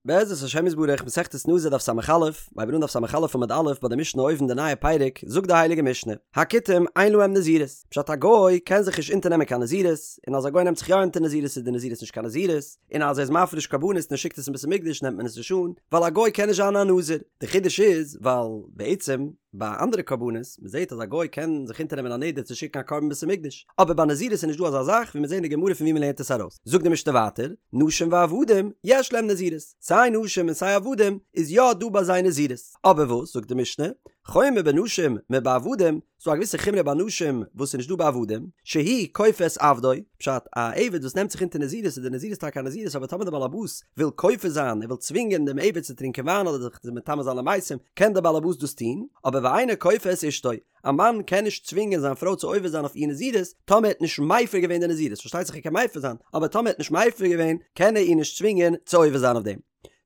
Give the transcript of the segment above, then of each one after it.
בעזרת השם יתברך, מסכת נזיר דף ס"א, מ'הייבט אן דף ס"א עמוד א' ביי די משנה אויבן די נייע פרק, זאגט די הייליגע משנה, הכותים אין להם נזירות, פשט א גוי קען זיך נישט אונטערנעמען קיין נזירות, און אז א גוי נעמט זיך יא אונטער נזירות איז די נזירות נישט קיין נזירות, און אז ער איז מפריש קרבנות און ער שיקט עס אין בית המקדש נעמט מען עס נישט אן, ווייל א גוי קען נישט זיין א נזיר. די חידוש איז ווייל בעצם ביי אנדערע קרבנות, מען זעט אז א גוי קען זיך אונטערנעמען א נדר צו שיקן א קרבן אין בית המקדש, אבער ביי נזירות איז נישט דא אזא זאך, ווי מיר זעהן אין די גמרא פון ווי מען לערנט עס ארויס. זאגט די משנה ווייטער, נשים ועבדים יש להם נזירות, סיי נשים און סיי עבדים איז יא דא ביי זיי נזירות, אבער וואס זאגט די משנה, חומר בנשים מבעבדים, ס'דא א געוויסע חומרא ביי נשים וואס איז נישט דא ביי עבדים, שהוא כופה את עבדו, פשט, א עבד וואס נעמט זיך אונטער נזירות איז די נזירות טאקע א נזירות אבער טאמער די בעל הבית וויל כופה זיין ער וויל צווינגען דעם עבד צו טרינקען וויין אדער זיך מטמא זיין למתים קען דער בעל הבית דאס טון, אבער ואינו כופה את אשתו, א מאן קען נישט צווינגען זיין פרוי צו עובר זיין אויף איר נזירות טאמער ער האט נישט מפר געווען די נזירות, פארשטייט זיך ער קען מפר זיין, אבער טאמער ער האט נישט מפר געווען קען ער איר נישט צווינגען צו עובר זיין אויף דעם.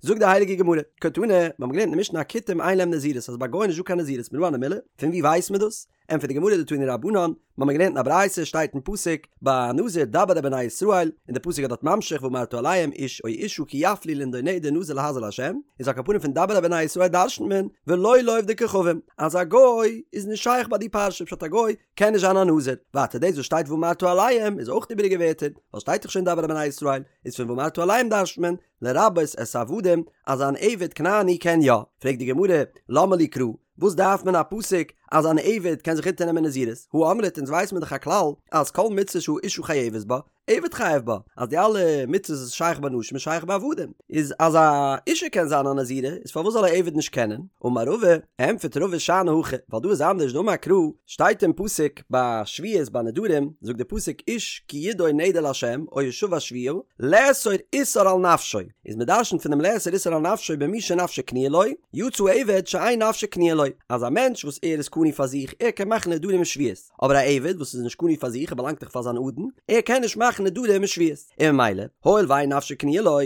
זאגט די הייליגע גמרא, קתני, מיר האבן געלערנט אין די משנה הכותים אין להם נזירות אז ביי גוים איז נישט דא קיין נזירות מנא הני מילי, פון ווי ווייסט מען דאס? ענטפערט די גמרא דתנו רבנן, מיר האבן געלערנט אין א ברייתא שטייט אין פסוק ביי נזיר דבר אל בני ישראל, און די פסוק איז דארט ממשיך ואמרת אליהם איש או אשה כי יפליא לנדור נדר נזיר להזיר לה', איז על כל פנים פון דבר אל בני ישראל דרשנ'ט מען ולא לעובדי כוכבים, אז א גוי איז נישט שייך ביי די פרשה פשט א גוי קען נישט זיין א נזיר, ווייטער דאס וואס שטייט ואמרת אליהם איז אויך איבעריגע ווערטער, ווייל שטייט דאך שוין דבר אל בני ישראל, איז פון ואמרת אליהם דרשנ'ט מען לרבות את העבדים אז אן עבד כנעני קען יא, פרעגט די גמרא למה לי קרא, וואס דארף מען א פסוק אז אן עבד קען זיך אונטערנעמען נזירות? הא אמרת אונז ווייס מיר דאך א כלל אז כל מצוה שהאשה חייבת בה, עבד חייב בה, אז די אלע מצוות וואס איז שייך ביי נשים איז שייך ביי עבדים, איז אז א אישה קען זיין א נזירה איז פארוואס זאל א עבד נישט קענען? אמר רבא, ענטפערט רבא שאני הכא, ווייל דא איז אנדערש דאמר קרא, שטייט אין פסוק ביי שבועות ביי נדרים, זאגט די פסוק איש כי ידור נדר לה' או השבע שבועה, לאסור איסור על נפשו, איז מען דרשנ'ט פון דעם לאסור איסור על נפשו במי שנפשו קנויה לו, יצא עבד שאין נפשו קנויה לו, אז א מענטש וואס ער איז קנוי פאר זיך, ער קען מאכן נדרים און שבועות, אבער א עבד וואס איז נישט קנוי פאר זיך, ער באלאנגט דאך פאר זיין אדון, ער קען נישט מאכן נדרים און שבועות, און ממילא, הואיל ואין נפשו קנויה לו,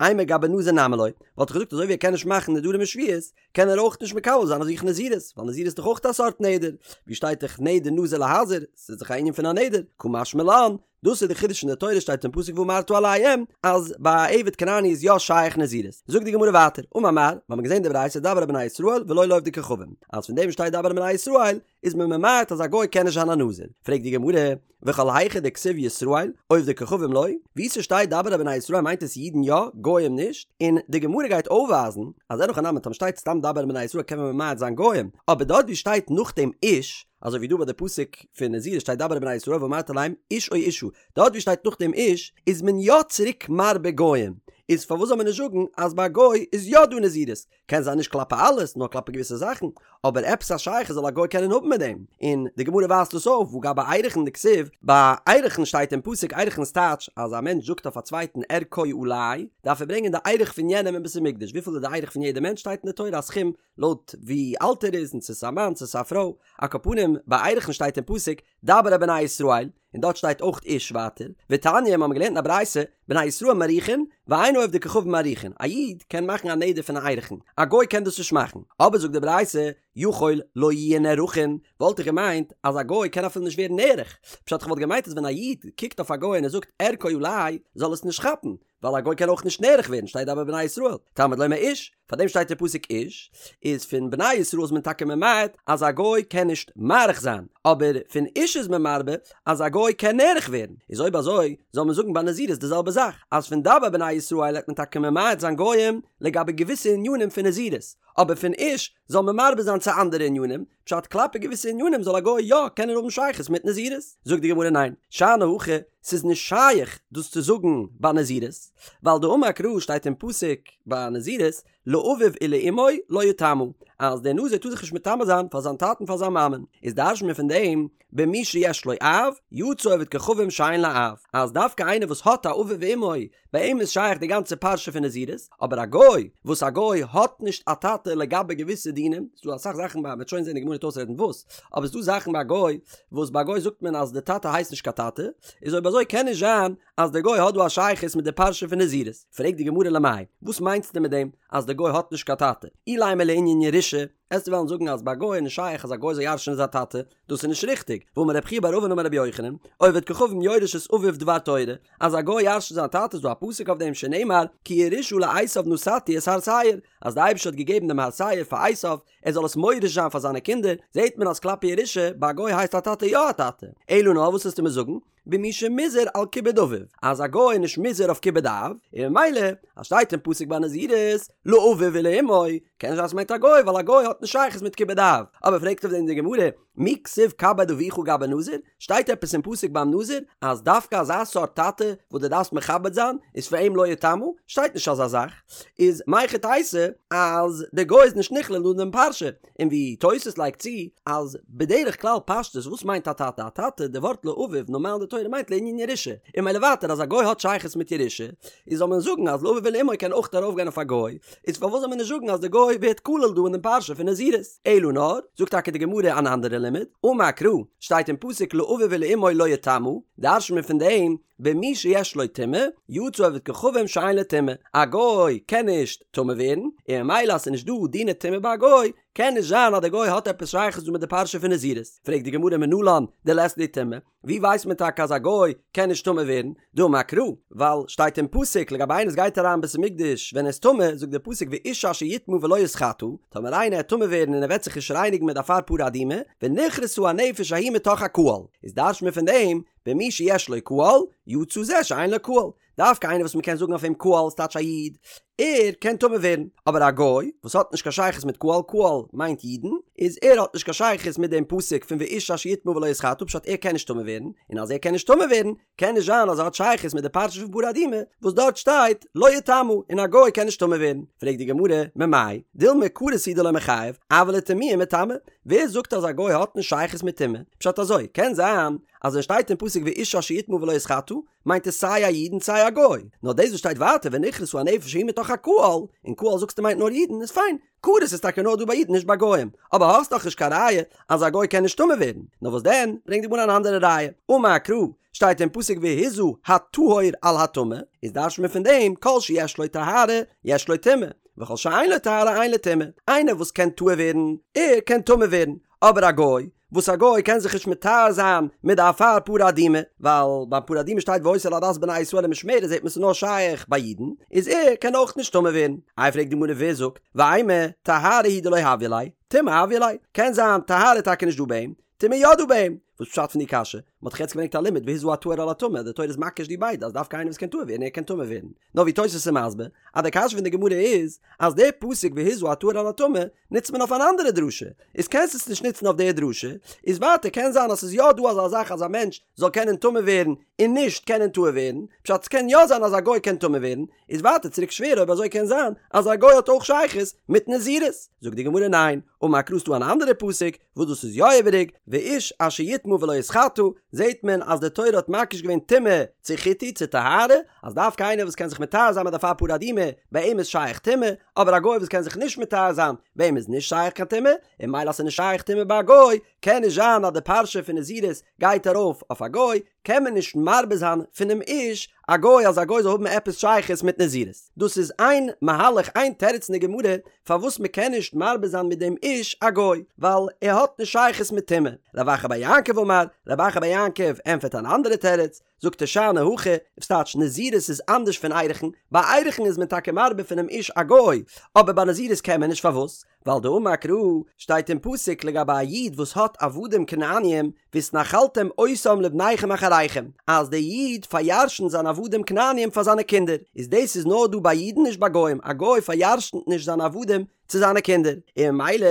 אימא גבי נזיר נמי לא, וואלט איך געזאגט אזוי ווי ער קען נישט מאכן נדרים און שבועות, קען ער אויך נישט מקבל זיין אויף זיך נזירות, ווייל נזירות איז דאך אויך א סארט נדר, ווי שטייט דאך נדר נזיר להזיר, ס'איז דאך א ענין פון א נדר, קא משמע לן, דאס איז די חידוש אין די תורה שטייט אין פסוק ואמרת אליהם אז ביי א עבד כנעני איז יא שייך נזירות. זאגט די גמרא ווייטער, אמר מר, מיר האבן געזען די ברייתא דבר אל בני ישראל ולא לעובדי כוכבים, אז פון דעם שטייט דבר אל בני ישראל איז מען ממעט אז א גוי קען נישט זיין א נזיר. פרעגט די גמרא, וכל היכא דכתיב ישראל, עובדי כוכבים לא, וואו ס'שטייט דבר אל בני ישראל מיינט עס אידן יא, גוים נישט, און די גמרא גייט אויפווייזן אז אין הכי נמי טאמער שטייט סתם דבר אל בני ישראל קען מען ממעט זיין גוים, אבער דארט וואו שטייט נאכדעם איש, אזוי ווי דא ביי די פסוק פון נזירות שטייט דבר אל בני ישראל ואמרת אליהם איש או אשה, דארט ווי שטייט נאכדעם איש איז מען יא צוריק מרבה גוים, איז פארוואס זאל מען נישט זאגן אז ביי א גוי איז יא דא נזירות, קען זיין נישט כלפי אלעס נאר כלפי געוויסע זאכן, אבער עפעס א שייכות זאל א גוי קענען האבן מיט דעם, און די גמרא ווייזט דאס אויף והא גבי ערכין דכתיב, ביי ערכין שטייט אין פסוק ערכין איז טייטש אז א מענטש זאגט אויף א צווייטן ערכו עלי דארף ער ברענגען די ערך פון יענעם אין בית המקדש, וויפיל איז די ערך פון יעדע מענטש שטייט אין די תורה א סכום לויט ווי אלט ער איז און צו ס'איז א מאן צו ס'איז א פרוי, על כל פנים ביי ערכין שטייט אין פסוק דבר אל בני ישראל, און דארט שטייט אויך איש ווייטער, ותניא מיר האבן געלערנט אין א ברייתא, בני ישראל מעריכין, ואין עובדי כוכבים מעריכין, א איד קען מאכן א נדר פון א ערכין, א גוי קען דאס נישט מאכן, אבער זאגט די ברייתא, יכול לא יהו נערכין, וואלט איך געמיינט אז א גוי קען אפילו נישט ווערן נערך, פשט איך וואלט געמיינט אז ווען א איד קוקט אויף א גוי און ער זאגט ערכו עלי, זאל עס נישט כאפן, ווייל א גוי קען אויך נישט נערך ווערן שטייט דבר אל בני ישראל, תלמוד לומר איש, פאר דעם שטייט אין פסוק איש, איז פון בני ישראל איז מען טאקע ממעט אז א גוי קען נישט מעריך זיין, אבער פון איש איז מען מרבה אז א גוי קען נערך ווערן, איז אויב אזוי זאל מען זאגן ביי נזירות די זעלבע זאך, אז פון דבר אל בני ישראל העט מען טאקע ממעט זיין גויים לגבי געוויסע ענינים פון נזירות, אבער פון איש זאל מען מרבה זיין צו אנדערע ענינים, פשט כלפי געוויסע ענינים זאל א גוי יא קענען האבן שייכות מיט נזירות? זאגט די גמרא ניין, שאני הכא, ס'איז נישט שייך דאס צו זאגן ביי נזירות, ווייל דאמר קרא שטייט אין פסוק ביי נזירות לאביו ולאמו לא יטמא, אז דער נזיר טאר זיך נישט מטמא זיין פאר זיין טאטן פאר זיין מאמען, איז דרש'נט מען פון דעם במי שיש לו אב, יצא עובד כוכבים שאין לו אב, אז דווקא איינער וואס האט א אביו ואמו, ביי אים איז שייך די גאנצע פרשה פון נזירות, אבער א גוי, וואס א גוי האט נישט א טאטע לגבי געוויסע דינים, ס'דא אסאך זאכן ביי, מ'וועט שוין זען די גמרא וועט אויסרעדן וואס, אבער ס'דא זאכן ביי א גוי, וואס ביי א גוי זאגט מען אז די טאטע הייסט נישט קיין טאטע, איז אויב אזוי קען נישט זיין אז די גוי האט דא א שייכות מיט די פרשה פון נזירות. פרעגט די גמרא למאי, וואס מיינסטו מיט דעם אז די גוי האט נישט קיין טאטע? אילימא לענין ירושה? עסטו וועלן זאגן אז ביי א גוי איז נישט שייך אז א גוי זאל ירש'נען זיין טאטע, דאס איז נישט ריכטיג, והאמר רב חייא בר אבין אמר רבי יוחנן, עובד כוכבים יורש את אביו דבר תורה, אז א גוי ירש'נט זיין טאטע איז דא א פסוק אויף דעם שנאמר כי ירושה לעשו נתתי את הר שעיר, אז די אייבערשטער האט געגעבן דעם הר שעיר פאר עשו ער זאל עס מוריש זיין פאר זיינע קינדער, זעט מען אז כלפי ירושה ביי א גוי הייסט א טאטע יא א טאטע, אלא נאר וואס וועסטו מיר זאגן? במי שמוזהר על כיבוד אביו, אז א גוי איז נישט מוזהר אויף כיבוד אב, און ממילא אז שטייט אין פסוק ביי נזירות לאביו ולאמו, קען נישט זיין ס'מיינט א גוי ווייל א גוי האט נישט שייכות מיט כיבוד אב, אבער פרעגט אויף דעם די גמרא, מי כתיב כבד אביך גבי נזיר, שטייט עפעס אין פסוק ביים נזיר אז דווקא אזא סארט טאטע וואס דו דארפסט מכבד זיין איז פאר אים לא יטמא? שטייט נישט אזא זאך, איז מהיכי תיתי אז די גוי איז נישט נכלל אין דעם פרשה, און ווי תוס' לייגט צו אז בדרך כלל פשטות וואס מיינט א טאטע? א טאטע, די ווארט לאביו נארמאל אין די תורה מיינט לענין ירושה, און ממילא ווייטער אז א גוי האט שייכות מיט ירושה, איז זאל מען זאגן אז לאביו ולאמו קען אויך ארויפגיין אויף א גוי, איז פארוואס זאל מען נישט זאגן אז די גוי ווערט כלול דא אין דעם פרשה פון נזירות? אלא נאר, זאגט טאקע די גמרא אן אנדערע לימוד, אמר קרא, שטייט אין פסוק לאביו ולאמו לא יטמא, דרש'נט מען פון דעם, במי שיש לו טומאה, יצא עובד כוכבים שאין לו טומאה, א גוי קען נישט טמא ווערן, און ממילא אז ס'איז נישט דא דיני טומאה ביי א גוי, קען נישט זיין אז די גוי האט עפעס שייכות דא מיט די פרשה פון נזירות. פרעגט די גמרא מנלן דלית ליה טומאה, ווי ווייסט מען טאקע אז א גוי קען נישט טמא ווערן? דאמר קרא, ווייל שטייט אין פסוק לגבי איינער וואס גייט אריין אין בית המקדש ווען ער איז טמא, זאגט דער פסוק ואיש אשר יטמא ולא יתחטא, טאמער איינער וועט טמא ווערן און ער וועט זיך נישט רייניגן מיט די אפר פרה אדומה, ונכרתה הנפש ההיא מתוך הקהל, איז דרש'ט מען פון דעם, במי שיש לו קהל, יצא זה שאין לו קהל. דווקא איינער וואס מ'קען זאגן אויף אים קהל ס'טייטש א איד, ער קען טמא ווערן, אבער א גוי וואס האט נישט קיין שייכות מיט קהל, קהל מיינט אידן, איז ער האט נישט קיין שייכות מיט דעם פסוק פון ואיש אשר יטמא ולא יתחטא פשט ער קען נישט טמא ווערן, און אז ער קען נישט טמא ווערן, קען נישט זיין אז ער האט שייכות מיט די פרשה פון פרה אדומה וואס דארט שטייט לא יטמא און א גוי קען נישט טמא ווערן. פרעגט די גמרא, ממאי? דילמא כרת הוא דלא מיחייב, אבל לטמויי מיטמא, ווער זאגט אז א גוי האט נישט שייכות מיט טומאה? פשט אזוי, קען זיין אז ווען שטייט אין פסוק ואיש אשר יטמא ולא יתחטא, מיינט עס סיי א איד און סיי א גוי, נאר דאס וואס שטייט ווייטער ונכרתה הנפש ההיא מתוך הקהל, און קהל זאגסטו מיינט נאר אידן, איז פיין, כרת איז טאקע נאר דא ביי אידן נישט ביי גוים, אבער האסט דאך נישט קיין ראיה אז א גוי קען נישט טמא ווערן, נאר וואס דען, ברענגט די גמרא אן אנדערע ראיה, אמר קרא, שטייט אין פסוק והזה הטהור על הטמא, איז דרש'נט מען פון דעם כל שיש לו טהרה יש לו טומאה, וכל שאין לו טהרה אין לו טומאה, איינער וואס קען טהור ווערן, ער קען טמא ווערן, אבער א גוי, וואס א גוי קען זיך נישט מטהר זיין מיט די אפר פרה אדומה, ווייל ביים פרה אדומה שטייט והיתה לעדת בני ישראל למשמרת זעט מען ס'איז נאר שייך ביי אידן, איז ער קען אויך נישט טמא ווערן. איי פרעגט די גמרא ווער זאגט, ואימא טהרה הוא דלא הויא ליה, טומאה הויא ליה, קען זיין טהרה איז טאקע נישט דא ביי אים, טומאה יא דא ביי אים, וואס פשט פון די קשיא? מ'האט דאך יעצט געברענגט א לימוד והזה הטהור על הטמא, די תורה איז מקיש די ביידע אז דווקא איינער וואס קען טהור ווערן ער קען טמא ווערן. נאר ווי תוס' איז מסביר אז די קשיא פון די גמרא איז אז די פסוק והזה הטהור על הטמא נוצט מען אויף אן אנדערע דרשה, איז קענסט עס נישט נוצן אויף די דרשה, איז ווייטער קען זיין אז ס'איז יא דא אזא זאך אז א מענטש זאל קענען טמא ווערן און נישט קענען טהור ווערן, פשט ס'קען יא זיין אז א גוי קען טמא ווערן, איז ווייטער צוריק שווער אויב אזוי קען זיין אז א גוי האט אויך שייכות מיט נזירות, זאגט די גמרא ניין, אמר קרא ס'דא אן אנדערע פסוק וואס דאס איז יא איבעריג, ואיש אשר יטמא ולא יתחטא, זעהט מען אז די תורה האט מקיש געווען טומאה צו חיטוי צו טהרה, אז דווקא איינער וואס קען זיך מטהר זיין מיט די אפר פרה אדומה, ביי אים איז שייך טומאה, אבער א גוי וואס קען זיך נישט מטהר זיין, ביי אים איז נישט שייך קיין טומאה, און ממילא אז ס'איז נישט שייך טומאה ביי א גוי, קען נישט זיין אז די פרשה פון נזירות גייט ארויף אויף א גוי, קען מען נישט מרבה זיין פונעם איש א גוי אז א גוי זאל האבן עפעס שייכות מיט נזירות. דאס איז איין מהלך איין תירוץ אין די גמרא פארוואס מען קען נישט מרבה זיין מיט דעם איש א גוי, ווייל ער האט נישט שייכות מיט טומאה. רב אחא בר יעקב אמר, רב אחא בר יעקב ענטפערט אן אנדערע תירוץ, זאגט ער שאני הכא, וואס טייטש נזירות איז אנדערש פון ערכין, ביי ערכין איז מען טאקע מרבה פונעם איש א גוי, אבער ביי נזירות קען מען נישט פארוואס? ווייל דאמר קרא שטייט אין פסוק לגבי א איד וואס האט עבדים כנעניים והתנחלתם אותם לבניכם אחריכם אז דער איד פאר'ירש'נט זיינע עבדים כנעניים פאר זיינע קינדער, איז דאס איז נאר דא ביי אידן נישט ביי גוים, א גוי פאר'ירש'נט נישט זיינע עבדים צו זיינע קינדער, און ממילא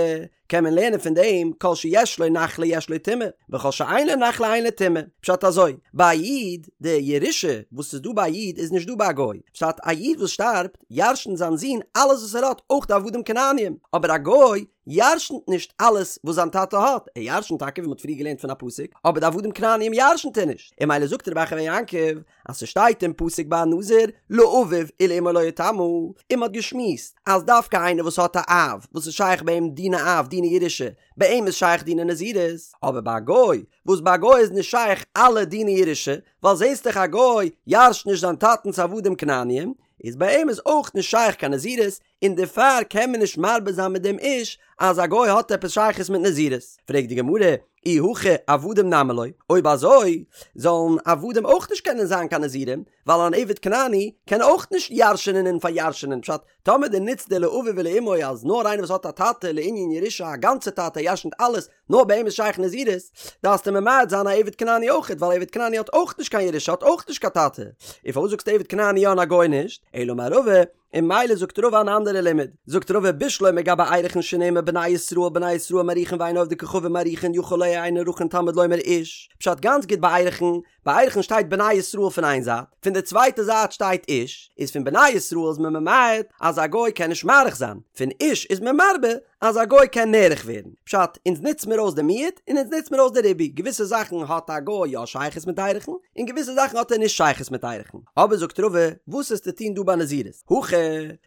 קען מען לערנען פון דעם כל שיש לו נחלה יש לו טומאה, וכל שאין לו נחלה אין לו טומאה. פשט אזוי, ביי א איד, די ירושה וואס איז דא ביי א איד איז נישט דא ביי א גוי. פשט, א איד וואס שטארבט, ירש'נט זיין זון אלעס וואס ער האט, אויך די עבדים כנעניים. אבער א גוי ירש'נט נישט אלעס וואס זיין טאטע האט, ער ירש'נט טאקע ווי מ'האט פריער געלערנט פון א פסוק, אבער די עבדים כנעניים ירש'נט ער נישט. און ממילא זאגט רב אחא בר יעקב, אז ס'שטייט אין פסוק ביי א נזיר לאביו ולאמו לא יטמא, און מ'האט געשמועסט אז דווקא איינער וואס האט א אב וואס איז שייך ביי אים דיני אב דיני ירושה, ביי אים איז שייך דיני נזירות, אבער ביי א גוי, וואס ביי א גוי איז נישט שייך אלע דיני ירושה, ווייל זעסט דאך א גוי ירש'ט נישט זיין טאטנ'ס עבדים כנעניים, איז ביי אים איז אויך נישט שייך קיין נזירות, און דערפאר קען מען נישט מרבה זיין מיט דעם איש אז א גוי האט עפעס שייכות מיט נזירות. פרעגט די גמרא, אי הכי עבדים נמי לא, אויב אזוי זאלן עבדים אויך נישט קענען זיין קיין נזירים, ווייל אן עבד כנעני קען אויך נישט ירש'ענען און פאר'ירש'ענען, פשט, טאמער דו נוצט די לאביו ולאמו אז נאר איינער וואס האט א טאטע לענין ירושה א גאנצע טאטע ירש'נט אלעס, נאר ביי אים איז שייך נזירות, דארפסטו ממעט זיין א עבד כנעני אויכעט ווייל עבד כנעני האט אויך נישט קיין ירושה האט אויך נישט קיין טאטע, און פארוואס זאגסטו עבד כנעני יא און א גוי נישט? אלא אמר רבא, און ממילא זאגט רבא אן אנדערע לימוד, זאגט רבא בשלמא גבי ערכין שנאמר בני ישראל בני ישראל מעריכין ואין עובדי כוכבים מעריכין יכול לא יהו נערכין תלמוד לומר איש, פשט גאנץ גוט ביי ערכין, ביי ערכין שטייט בני ישראל פון איין זייט, פון די צווייטע זייט שטייט איש, איז פון בני ישראל איז מען ממעט אז א גוי קען נישט מעריך זיין, פון איש איז מען מרבה אז א גוי קען נערך ווערן. פשט, אונז נוץ מיר אויס די מיעוט און אונז נוץ מיר אויס די ריבוי, געוויסע זאכן האט א גוי יא שייכות מיט ערכין, און געוויסע זאכן האט ער נישט שייכות מיט ערכין. אבער זאגט רבא, וואס איז צו טון דא ביי נזירות? הכא,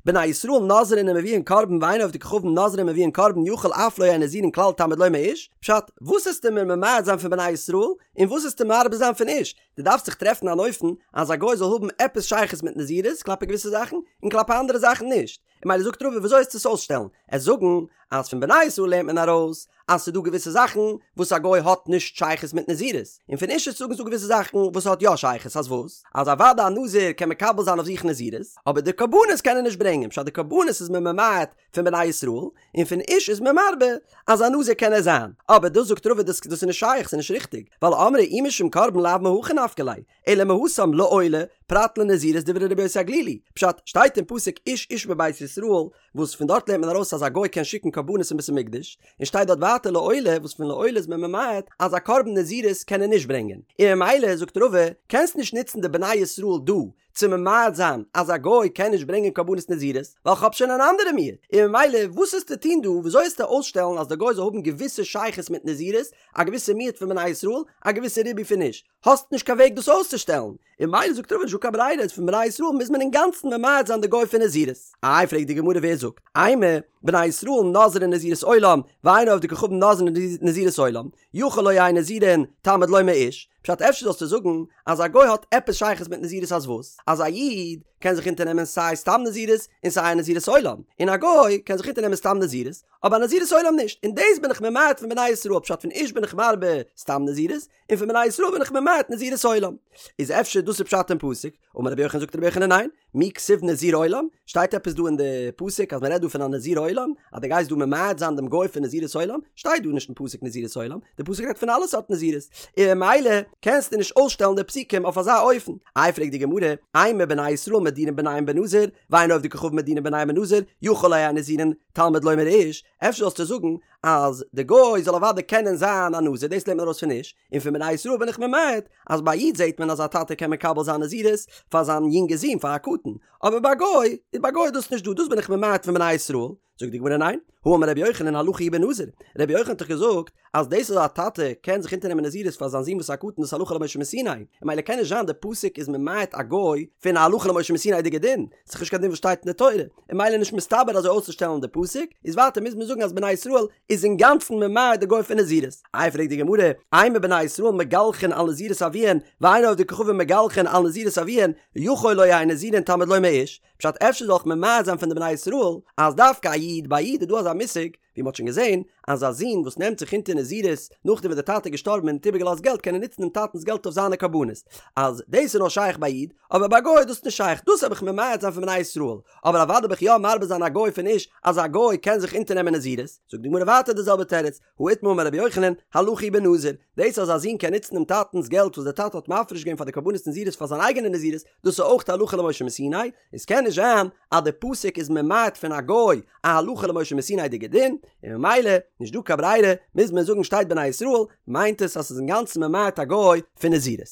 בני ישראל נוזרין ומביאין קרבן ואין עובדי כוכבים נוזרין ומביאין קרבן יכול אף לא יהו נזירין כלל תלמוד לומר איש, פשט, וואס עסטו מיר ממעט זיין פון בני ישראל, און וואס עסטו מרבה זיין פון איש? דו דארפסט זיך טרעפן אן אופן אז א גוי זאל האבן עפעס שייכות מיט נזירות כלפי געוויסע זאכן, און כלפי אנדערע זאכן נישט. און ממילא זאגט רבא וויאזוי עסטו עס אויסשטעלן? עסט זאגן אז פון בני ישראל לערנט מען ארויס אז ס'איז דא געוויסע זאכן וואס א גוי האט נישט שייכות מיט נזירות, און פון איש עסטו זאגן ס'איז דא געוויסע זאכן וואס האט יא שייכות אז וואס? אז אוודאי א נזיר קען מקבל זיין אויף זיך נזירות, אבער די קרבנות קען ער נישט ברענגען, פשט די קרבנות איז מען ממעט פון בני ישראל, און פון איש איז מען מרבה אז א נזיר קען ער זיין, אבער דאס זאגט רבא דאס איז נישט שייך ס'איז נישט ריכטיג, ווייל אמרי אי משום קרבן לאו מהכא נפקא ליה, אלא מהתם לעולה, פרט לנזירות דברי רבי יוסי הגלילי, פשט, שטייט אין פסוק איש איש מבית ישראל, וואס פון דארט לערנט מען ארויס אז א גוי קען שיקן קרבנות אין בית המקדש, און שטייט דארט ווייטער לעולה, וואס פון לעולה איז מען ממעט אז א קרבן נזירות קען ער נישט ברענגען, און ממילא זאגט רבא, קענסט נישט נוצן די בני ישראל דא צו ממעט זיין אז א גוי קען נישט ברענגען קרבנות נזירות, ווייל כ'האב שוין אן אנדערע מיעוט, און ממילא וואס עסטו טון דא, וויאזוי עסטו אויסשטעלן אז די גוי זאל האבן געוויסע שייכות מיט נזירות, א געוויסע מיעוט פון בני ישראל, א געוויסע ריבוי פון איש, האסט נישט קיין וועג דאס אויסצושטעלן, און ממילא זאגט רבא נישטא קיין ברירה איז פון בני ישראל מוז מען אינגאנצן ממעט זיין די גוי פון נזירות. איי פרעגט די גמרא ווער זאגט, אימא, בני ישראל נוזרין נזירות עולם, ואין עובדי כוכבים נוזרין נזירות עולם, יכול לא יהו נזירין, תלמוד לומר איש, פשט אפשר זאלסטו זאגן אז א גוי האט עפעס שייכות מיט נזירות אז וואס? אז א איד קען זיך אונטערנעמען סיי סתם נזירות און סיי א נזירות עולם, און א גוי קען זיך אונטערנעמען סתם נזירות אבער א נזירות עולם נישט, און דאס בין איך ממעט פון בני ישראל פשט פון איש בין איך מרבה סתם נזירות, און פון בני ישראל בין איך ממעט נזירות עולם. איז אפשר דאס איז פשט אין פסוק? אמר רבי יוחנן זאגט רבי יוחנן ניין, מי כתיב נזיר עולם? שטייט עפעס דא אין די פסוק אז מען רעדט דא פון א נזיר עולם? אז דו גייסט דא ממעט זיין דעם גוי פון נזירות עולם? שטייט דא נישט אין פסוק נזירות עולם, די פסוק רעדט פון אלע סארט נזירות, און ממילא קענסטו נישט אויסשטעלן די פסוקים אויף אזא אופן. איי פרעגט די גמרא, אימא בני ישראל מדירין בניהם בנזיר, ואין עובדי כוכבים מדירין בניהם בנזיר, יכול לא יהו נזירין, תלמוד לומר איש, אפשר זאלסטו זאגן אז די גוי זאל אוודאי קענען זיין א נזיר, דאס לערנט מען ארויס פון איש, און פון בני ישראל בין איך ממעט, אז ביי א איד זעט מען אז א טאטע קען מקבל זיין נזירות פאר זיין יונגע זון פאר א קטן, אבער ביי א גוי, איז ביי א גוי איז דאס נישט דא, דאס בין איך ממעט פון בני ישראל. זאגט די גמרא ניין, האמר רבי יוחנן הלכה היא בנזיר, רבי יוחנן האט דאך געזאגט אז דאס אז א טאטע קען זיך אונטערנעמען נזירות פאר זיין זון וואס איז א קטן דאס הלכה למשה מסיני, און ממילא קען נישט זיין די פסוק איז ממעט א גוי פון א הלכה למשה מסיני'דיגע דין, ס'איז נישט קיין דין וואס שטייט אין די תורה, און ממילא נישט מסתבר אזוי אויסצושטעלן די פסוק, איז ווייטער מוז מען זאגן אז בני ישראל איז אינגאנצן ממעט די גוי פון נזירות. איי פרעגט די גמרא, אימא בני ישראל מגלחין על נזירות אביהן, ואין עובדי כוכבים מגלחין על נזירות אביהן, יכול לא יהו נזירין תלמוד לומר איש, פשט אפשר זאל איך ממעט זיין פון די בני ישראל אז דווקא א איד, ביי א איד איז דא אזא מושג, ווי מ'האט שוין געזען, אז א זון וואס נעמט זיך אונטער נזירות נאכדעם וואס דער טאטע איז געשטארבן און האט איבערגעלאזט געלט קען ער נוצן דעם טאטנ'ס געלט אויף זיינע קרבנות, אז דאס איז נאר שייך ביי א איד, אבער ביי א גוי איז דאס נישט שייך, דאס האב איך ממעט זיין פון בני ישראל, אבער אוודאי האב איך יא מרבה זיין א גוי פון איש אז א גוי קען זיך אונטערנעמען נזירות, זאגט די גמרא ווייטער די זעלבע תירוץ, הא איתמר אמר רבי יוחנן, הלכה היא בנזיר, דאס אז א זון קען נוצן דעם טאטנ'ס געלט וואס דער טאטע האט מפריש געווען פאר די קרבנות נזירות פאר זיין אייגענע נזירות, דאס איז אויך הלכה למשה מסיני, עס קען נישט זיין אז די פסוק איז ממעט פון א גוי א הלכה למשה מסיני'דיגע דין, און ממילא נישט דא קיין ברירה מוז מען זאגן שטייט בני ישראל מיינט עס אז ס'איז אינגאנצן ממעט א גוי פון נזירות.